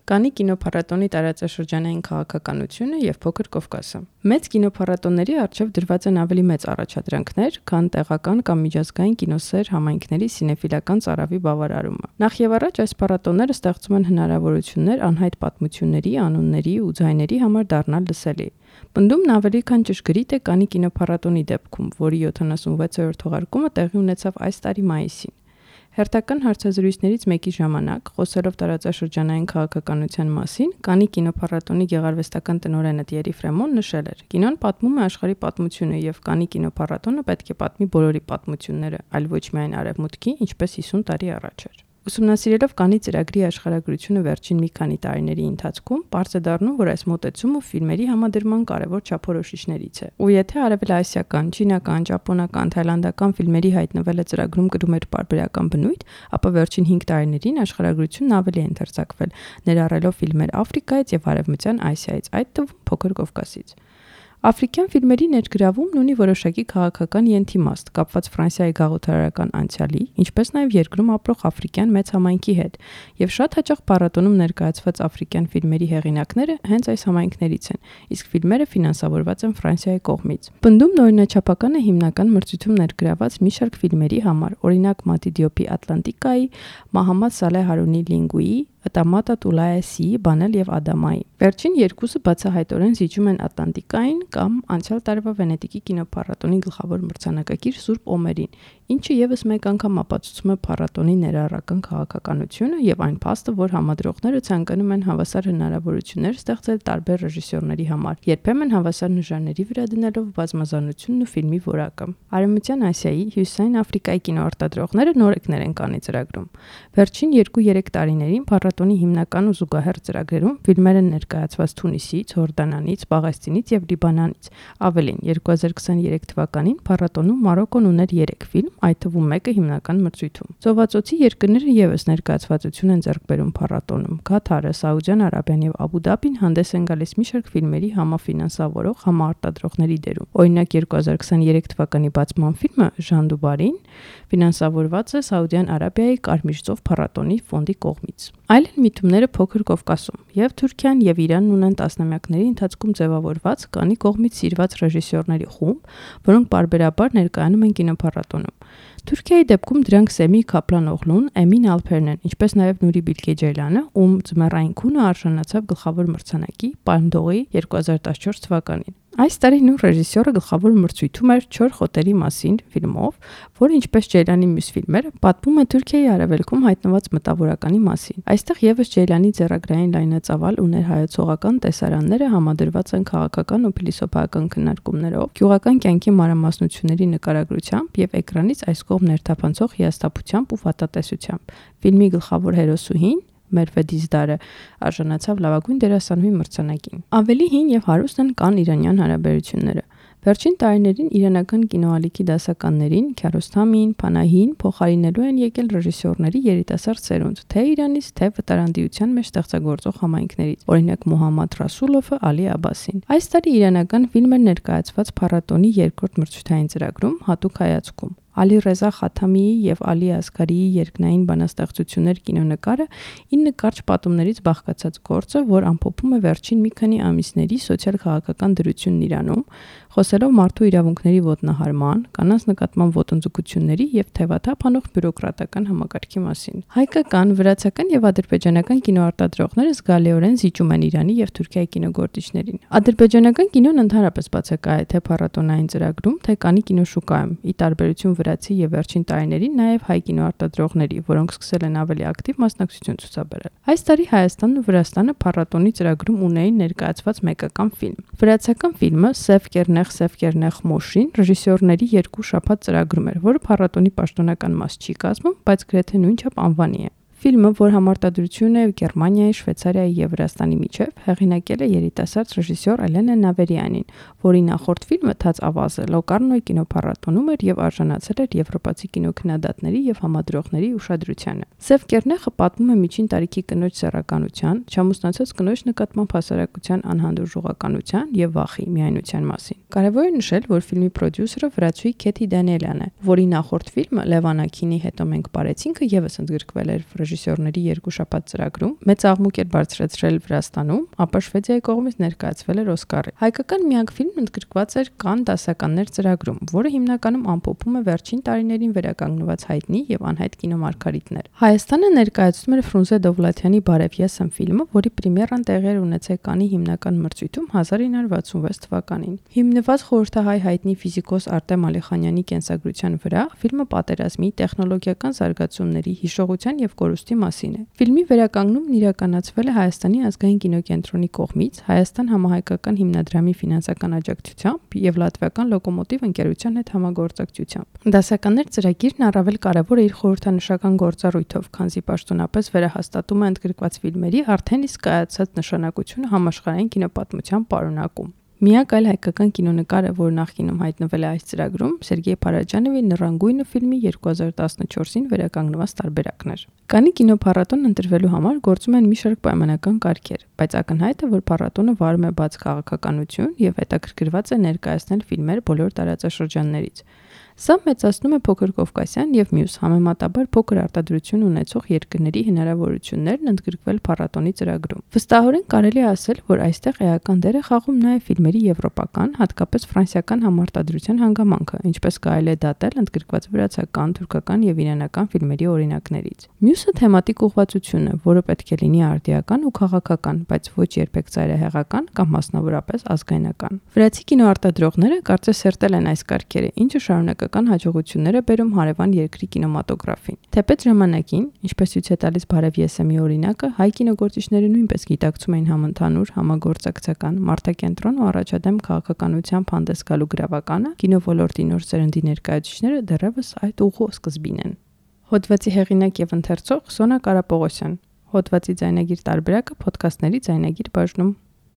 Կանի կինոփառատոնի տարածաշրջանային քաղաքականությունը եւ Փոքր Կովկասը։ Մեծ կինոփառատոնների առջև դրված են ավելի մեծ առաջադրանքներ, քան տեղական կամ միջազգային կինոսեր համայնքների սինեֆիլական ծարավի բավարարումը։ Նախ եւ առաջ այս փառատոնները ստեղծում են հնարավորություններ անհայտ պատմությունների, անունների ու ձայների համար դառնալ լսելի։ Պնդումն ավելի քան ճշգրիտ է Կանի կինոփառատոնի դեպքում, որի 76-րդ թողարկումը տեղի ունեցավ այս տարի մայիսին։ Հերթական հարցազրույցներից մեկի ժամանակ, խոսելով տարածաշրջանային քաղաքականության մասին, Կանի կինոփառատոնի գեղարվեստական տնօրենը Տիերի Ֆրեմոն նշել էր. «Կինոն պատմում է աշխարհի պատմությունը եւ Կանի կինոփառատոնը պետք է պատմի բոլորի պատմությունները, այլ ոչ միայն արևմուտքի, ինչպես 50 տարի առաջ էր»։ Ուսումնասիրելով Կանի ծրագրի աշխարհագրությունը վերջին մի քանի տարիների ընթացքում, պարզ է դառնում, որ այս մոտեցումը ֆիլմերի համադրման կարևոր չափորոշիչներից է։ Ու եթե արևելասիական, չինական, ճապոնական, թայլանդական ֆիլմերի հայտնվելը ծրագրում կրում էր պարբերական բնույթ, ապա վերջին 5 տարիներին աշխարհագրությունն ավելի է ընդարձակվել, ներառելով ֆիլմեր Աֆրիկայից եւ Արևմտյան Ասիայից, այդ թվում Փոքր Կովկասից։ Աֆրիկյան ֆիլմերի ներգրավումն ունի որոշակի քաղաքական ենթիմաստ, կապված Ֆրանսիայի գաղութարարական անցյալի, ինչպես նաև երկրում ապրող աֆրիկյան մեծ համայնքի հետ, եւ շատ հաճախ փառատոնում ներկայացված աֆրիկյան ֆիլմերի հեղինակները հենց այս համայնքներից են, իսկ ֆիլմերը ֆինանսավորված են Ֆրանսիայի կողմից։ Պնդումն օրինաչափական է հիմնական մրցույթում ներգրաված մի շարք ֆիլմերի համար, օրինակ Մատի Դիոպի Ատլանտիկայի, Մահամմադ Սալեհ Հարունի Լինգուի, Տամատա Տուլայեսի, Բանել եւ Ադամայի։ Վերջին երկուսը բացահայտորեն զիջում են Ատլանտիկային կամ անցյալ տարվա Վենետիկի կինոփառատոնի գլխավոր մրցանակակիր Սուրբ Օմերին, ինչը եւս մեկ անգամ ապացուցում է փառատոնի ներառական քաղաքականությունը եւ այն փաստը, որ համադրողները ցանկանում են հավասար հնարավորություններ ստեղծել տարբեր ռեժիսորների համար, երբեմն հավասար նժարների վրա դնելով բազմազանությունն ու ֆիլմի որակը։ Արևմտյան Ասիայի, Հյուսիսային Աֆրիկայի կինոարտադրողները նորեկներ են Կանի ծրագրում։ Վերջին 2-3 տարիներին փառատոնի հիմնական ու զուգահեռ ծրագրերում ֆիլմեր են ներկայացված Թունիսից, Հորդանանից, Պաղեստինից եւ Լիբանանից։ Ավելին, 2023 թվականին փառատոնում Մարոկոն ուներ 3 ֆիլմ, այդ թվում մեկը հիմնական մրցույթում։ Ծովացոցի երկրները եւս ներկայացվածություն են ձեռք բերում փառատոնում։ Կաթարը, Սաուդյան Արաբիան եւ Աբու Դաբին հանդես են գալիս մի շարք ֆիլմերի համաֆինանսավորող, համարտադրողների դերում։ Օրինակ 2023 թվականի բացման ֆիլմը Ժան Դուբարին ֆինանսավորված է Սաուդյան Արաբիայի Կարմիր ծով փառատոնի ֆոնդի կողմից։ Այլ են միտումները Փոքր Կովկասում։ Եվ Թուրքիան եւ Իրանն ունեն տասնամյակների ընթացքում ձևավորված Կանի կողմից սիրված ռեժիսորների խումբ, որոնք պարբերաբար ներկայանում են կինոփառատոնում։ Թուրքիայի դեպքում դրանք Սեմի Քապլան-օղլուն, Էմին Ալփերն են, ինչպես նաև Նուրի Բիլգե Ջեյլանը, ում ձմեռային քունը արժանացավ գլխավոր մրցանակի Պալմդորի 2014 թվականին։ Այս տարի նույն ռեժիսորը գլխավոր մրցույթում էր Չոր խոտերի մասին ֆիլմով, որը ինչպես Ջեյլանի մյուս ֆիլմերը, պատմում է Թուրքիայի արևելքում հայտնված մտավորականի մասին։ Այստեղ եւս Ջեյլանի ձեռագրային լայնածավալ ու ներհայեցողական տեսարանները համադրված են քաղաքական ու փիլիսոփայական քննարկումներով, գյուղական կյանքի մանրամասնությունների նկարագրությամբ եւ էկրանից այս կողմ ներթափանցող հիասթափությամբ ու վատատեսությամբ։ Ֆիլմի գլխավոր հերոսուհին Մերվե Դիզդարը արժանացավ լավագույն դերասանուհի մրցանակին։ Ավելի հին եւ հարուստ են կան-իրանյան հարաբերությունները։ Վերջին տարիներին իրանական կինոալիքի դասականներին Քիարոստամին, Փանահին փոխարինելու են եկել ռեժիսորների երիտասարդ սերունդ, թե Իրանից, թե վտարանդիության մեջ ստեղծագործող համայնքներից, օրինակ Մոհամմադ Ռասուլովը, Ալի Աբասին։ Այս տարի իրանական ֆիլմը ներկայացված փառատոնի երկրորդ մրցութային ծրագրում հատուկ հայացքում։ Ալի Ռեզա Խաթամիի եւ Ալի Ասգարիի երկնային բանաստեղծություններ կինոնկարը 9 կարճ պատումներից բաղկացած գործը, որ ամփոփում է վերջին մի քանի ամիսների սոցիալ-քաղաքական դրությունն Իրանում, խոսելով մարդու իրավունքների ոտնահարման, կանանց նկատմամբ ոտնձգությունների եւ թևաթափ անող բյուրոկրատական համակարգի մասին։ Հայկական, վրացական եւ ադրբեջանական կինոարտադրողները զգալիորեն զիջում են Իրանի եւ Թուրքիայի կինոգործիչներին։ Ադրբեջանական կինոն ընդհանրապես բացակայ է թե փառատոնային ծրագրում, թե Կանի կինոշուկայում, ի տարբերություն վրացի եւ վերջին տարիներին նաեւ հայ կինոարտադրողների, որոնք սկսել են ավելի ակտիվ մասնակցություն ցուցաբերել։ Այս տարի Հայաստանն ու Վրաստանը փառատոնի ծրագրում ունեին ներկայացված մեկական ֆիլմ։ Վրացական ֆիլմը Սև Կերնեղ Մոշին ռեժիսորների 2 շաբաթ ծրագրում էր, որը փառատոնի պաշտոնական մաս չի կազմում, բայց գրեթե նույնչափ անվանի է։ Ֆիլմը, որ համարտադրություն է Գերմանիայի, Շվեյցարիայի եւ Վրաստանի միջև, հեղինակել է երիտասարդ ռեժիսոր Էլենա Նավերյանին, որի նախորդ ֆիլմը Թաց ավազը Լոկարնոյի կինոփառատոնում էր եւ արժանացել էր եվրոպացի կինոքննադատների եւ համադրողների ուշադրությանը։ Սև Կերնեղը պատմում է միջին տարիքի կնոջ սեռականության, չամուսնացած կնոջ նկատմամբ հասարակության անհանդուրժողականության եւ վախի միայնության մասին։ Կարևոր է նշել, որ ֆիլմի պրոդյուսերը վրացուհի Քեթի Դանիելյանն է, որի նախորդ ֆիլմը Լևան Աքինի Հետո մենք պարեցինքը եւս ընդգրկվել էր ռեժիսորների երկուշաբաթ ծրագրում, մեծ աղմուկ էր բարձրացրել Վրաստանում, ապա Շվեդիայի կողմից ներկայացվել էր Օսկարի։ Հայկական միակ ֆիլմն ընդգրկված էր Կանն դասականներ ծրագրում, որը հիմնականում ամփոփում է վերջին տարիներին վերականգնված հայտնի եւ անհայտ կինոմարգարիտներ։ Հայաստանը ներկայացնում էր Ֆրունզե Դովլաթյանի Բարև ես եմ ֆիլմը, որի պրեմիերան տեղի էր ունեցել Կաննի հիմնական մրցույթում 1966 թվականին։ Հիմնված խորհրդահայ հայտնի ֆիզիկոս Արտեմ Ալիխանյանի կենսագրության վրա, ֆիլմը պատերազմի, տեխնոլոգիական զարգացումների, հիշողության եւ կորուստի մասին է։ Ֆիլմի վերականգնումն իրականացվել է Հայաստանի ազգային կինոկենտրոնի կողմից, Հայաստան համահայկական հիմնադրամի ֆինանսական աջակցությամբ եւ Լատվիական Լոկոմոտիվ ընկերության հետ համագործակցությամբ։ Դասականներ ծրագիրն առավել կարևոր է իր խորհրդանշական գործառույթով, քանզի պաշտոնապես վերահաստատում է ընդգրկված ֆիլմերի արդեն իսկ կայացած նշանակությունը համաշխարհային կինոպատմության պարունակում։ Միակ այլ հայկական կինոնկարը, որ նախկինում հայտնվել է այս ծրագրում, Սերգեյ Փարաջանովի Նռանգույնը ֆիլմի 2014-ին վերականգնված տարբերակն էր։ Կաննի կինոփառատոնն ընտրվելու համար գործում են մի շարք պայմանական կարգեր, բայց ակնհայտ է, որ փառատոնը վարում է բաց քաղաքականություն եւ հետաքրքրված է ներկայացնել ֆիլմեր բոլոր տարածաշրջաններից։ Սա մեծացնում է Փոքր Կովկասյան եւ մյուս համեմատաբար փոքր արտադրություն ունեցող երկրների հնարավորություններն ընդգրկվել փառատոնի ծրագրում։ Վստահորեն կարելի է ասել, որ այստեղ էական դեր է խաղում նաեւ ֆիլմերի եվրոպական, հատկապես ֆրանսիական համարտադրության հանգամանքը, ինչպես կարելի է դատել ընդգրկված վրացական, թուրքական եւ իրանական ֆիլմերի օրինակներից։ Մյուսը թեմատիկ ուղղվածությունն է, որը պետք է լինի արդիական ու քաղաքական, բայց ոչ երբեք ծայրահեղական կամ մասնավորապես ազգայնական։ Վրացի կինոարտադրողները կարծես սերտել են այս կարգերը, ինչը շարունակական հաջողություններ է բերում հարևան երկրի կինեմատոգրաֆին։ Թեպետ ժամանակին, ինչպես ցույց է տալիս Բարև ես եմ օրինակը, հայ կինոգործիչները նույնպես գիտակցում էին համընդհանուր, համագործակցական, մարդակենտրոն ու առաջադեմ քաղաքականությամբ հանդես գալու գրավականը, կինոլորտի նոր սերնդի ներկայացուցիչները դեռևս այդ ուղու սկզբին են։ Հոդվածի հեղինակ եւ ընթերցող Սոնա Կարապողոսյան։ Հոդվածի ձայնագիր տարբերակը ոդքասթների ձայնագիր բաժնում։